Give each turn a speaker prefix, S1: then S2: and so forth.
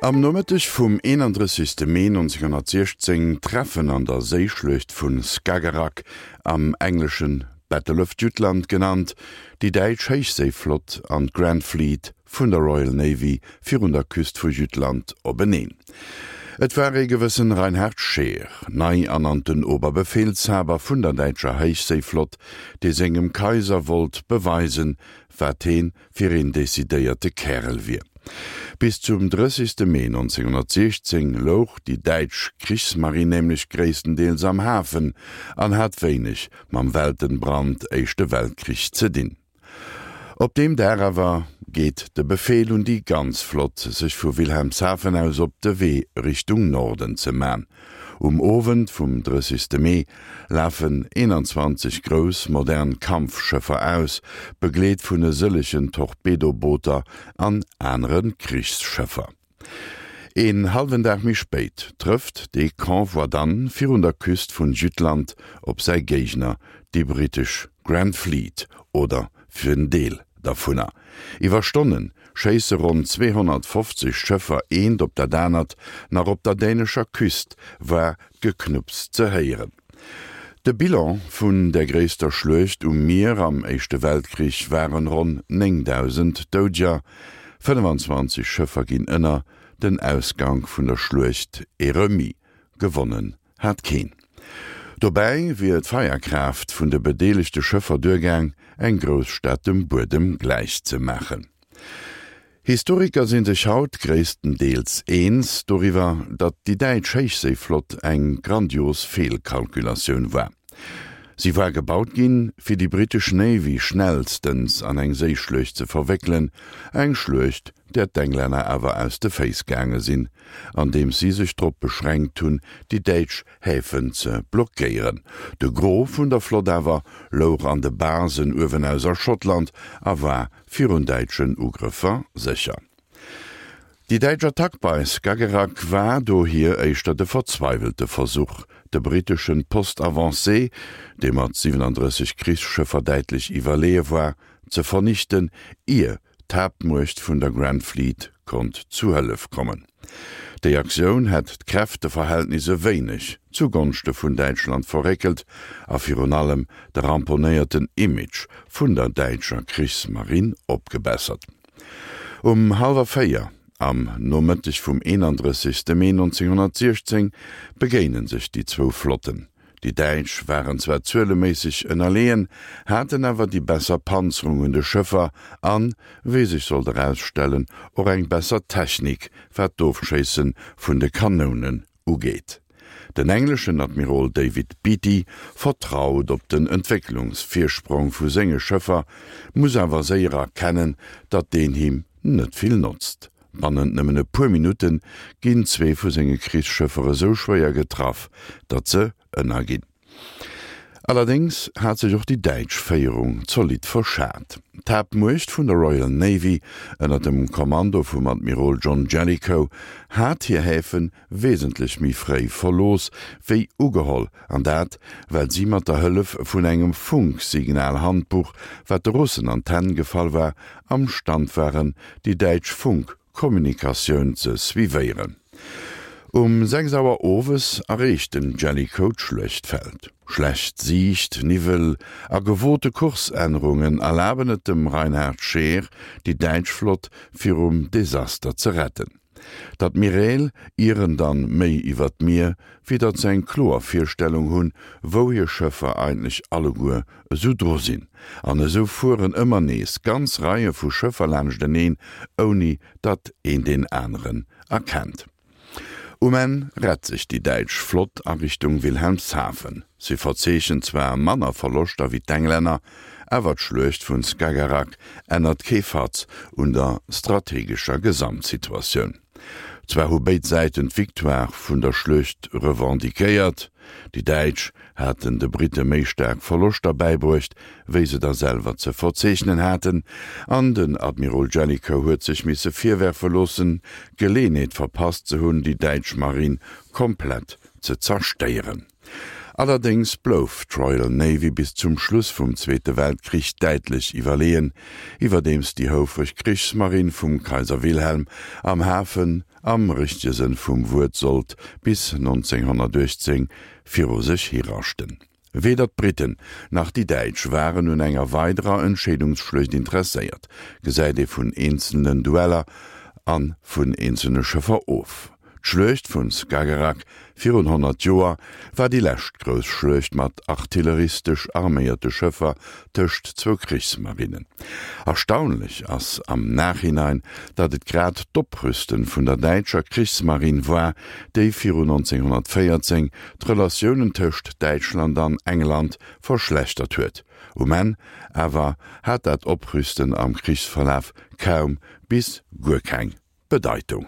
S1: Am Nomëtteg vum 31. Mee 1916 treffen an der Séischluecht vu Skagerrak, am Engleschen Battle of Jutland genannt, déi däitsch Héichséiflott an d'Grand Fleet vun der Royal Navy virun der Küst vu Jütland openeen. Et war ee gewëssen Reinhard Scheer, nei ernannten Oberbefehlshaber vun der däitscher Héichséiflott, dee sengem Kaiser wollt beweisen, wat heen fir een decidéierte Kärel wier. Bis zum 30. Mee 1916 louch déi däitsch Krichsmarinn nämlech gréisstendeels am Hafen an hat wéineg mam Weltenbrand, Éischte Weltkrich, ze dinn. Op deem Dag awer geet de Befeel un déi ganz Flott, sech vu Wilhelmshaven aus op de Wee Richtung Norden ze man. Um Owend vum 30. Mee lafen 21 grouss modern Kampfschëffer aus, begleet vun e sëllegen Torpedobooter an anere Krichsschëffer. Een hallwen Dag méi spéit trëfft dee Convoi dann virun der Küst vun Jütland op säi Géigner, déi brittesch Grand Fleet, oder fir en Deel dervunner. Iwwer Stonne schéisse ronn 250 Schëffer eent op dat anert, nach op der dänescher Küst war d'Geknupps ze héieren. De Bilan vun der gréisster Schluecht um Mier am Éischte Weltkrich waren ronn 9.000 Doudeger, 25 Schëffer ginn ënner, den Ausgank vun der Schluecht e Remis, gewonnen hat keen. Dobäi wier d'Feierkraaft vun de bedeelegte Schëffer duergaang, eng Grousstad dem Buedem gläich ze maachen. Historiker si sech haut gréisstendeels eens doriwwer, datt déi däitsch Héichséiflott eng grandios Feelkalkulatioun war. Si war gebaut ginn, fir déi brittesch Navy schnellstens an eng Séischluecht ze verwéckelen, eng Schluecht, där d'Englänner awer aus de Féiss gaange sinn, andeems si sech drop beschränkt hunn, déi däitsch Häfen ze blockéieren. De Gros vun der Flott awer louch an de Basen uewenaus a Schottland a war virun däitschen Ugrëffer sécher. Déi däitsch Attack bei Skagerrak war dohier éischter de verzweiwelte Versuch, de britteschen Poste avancé, dee mat 37 Krichsschëffer däitlech iwwerleeë war, ze vernichten, ier d'Haaptmuecht vun der Grand Fleet konnt zu Hëllef kommen. Déi Aktioun hätt d'Kräfteverhältnis e wéineg zu Gonschte vun Däitschland verréckelt a virun allem de ramponéierten Image vun der däitscher Krichsmarinn opgebessert. Um hallwer 4 am Nomëtteg vum 31. Mee 1916 begéine sech déi zwou Flotten. Déi Däitsch waren zwar zueleméisseg ënnerleeën, haten awer déi besser Panzerung un de Schëffer an, wéi sech sollt erausstellen, och eng besser Technik wat d'Ofschéisse vun de Kanounen ugeet. Den engleschen Admirol David Beatty vertraut op den Entwécklungsvirsprong vu senge Schëffer, muss awer séier erkennen, datt deen him net vill notzt. Bannent nëmmen e puer Minutte ginn zwee vu senge Krichsschëffer esou schwéier getraff, datt se ënnerginn. Allerdéngs hat sech och déi däitsch Féierung zolidd verschat. D'Haaptmuecht vun der Royal Navy ënner dem Kommando vum Admirol John Jellicoe hat hir Häfe wesentlech méi fréi verlooss wéi ugeholl, an dat well si mat der Hëllef vun engem Funksignalhandbuch, wat de Russen an d'Hänn gefall war, am Stand waren, déi däitsch Funkkommunikatioun ze suivéieren. Um 6 Auer owes erreecht den Jellicoe d'Schluechtfeld. Schlecht Siicht, Niwwel a gewote Kursännerungen erlaben et dem Reinhard Scheer, déi däitsch Flott virum Desaster ze retten. D'Admiräl ieren dann méi iwwer d'Mier, wéi datt se eng kloer Virstellung hunn, wou hir Schëffer eigentlech alleguer esou dru sinn. An esou fueren ëmmer nees ganz Reie vu Schëffer laanschteneen, ouni datt een deen aneren erkennt. Um Enn rett sech déi däitsch Flott a Richtung Wilhelmshaven. Si verzeechent zwar manner Verloschter wéi d'Englänner, awer d'Schluecht vun Skagerrak ännert kee Fatz un der strategescher Gesamtsituatioun. Zwar hu béid Säiten d'Victoire vun der Schluecht revendiquéiert, déi Däitsch haten de Britte méi staark Verloschter bäibruecht, wéi se der selwer ze verzeechnen haten, an den Admirol Jellicoe huet sech misse virwerfe loossen, d'Geleenheet verpasst ze hunn, déi däitsch Marinn komplett ze zerstéieren. Allerdéngs blouf d'Royal Navy bis zum Schluss vum Zweete Weltkrich däitlech iwwerleeën, iwwerdeems déi houfreg Krichsmarinn vum Kaiser Wilhelm am Hafen. am richtege Sënn vum Wuert sollt bis 1918 viru sech hiraschten. Weder d'Briten nach déi Däitsch waren un enger weiderer Entscheedungsschluecht interesséiert, gesäit ee vun eenzelnen Dueller a vun eenzelne Schëffer of. D'Schluecht vun Skagerrak virun 100 Joer war déi lescht grouss Schluecht mat artilleristesch arméierte Schëffer tëscht zwou Krichsmarinnen. Erstaunlech ass am Nachhinein, datt et grad d'Oprüsten vun der däitscher Krichsmarinn war, déi virun 1914 d'Relatiounen tëscht Däitschland an England verschlechtert huet. Um Enn awer hat dat Oprüsten am Krichsverlaf kaum bis guer keng Bedeitung.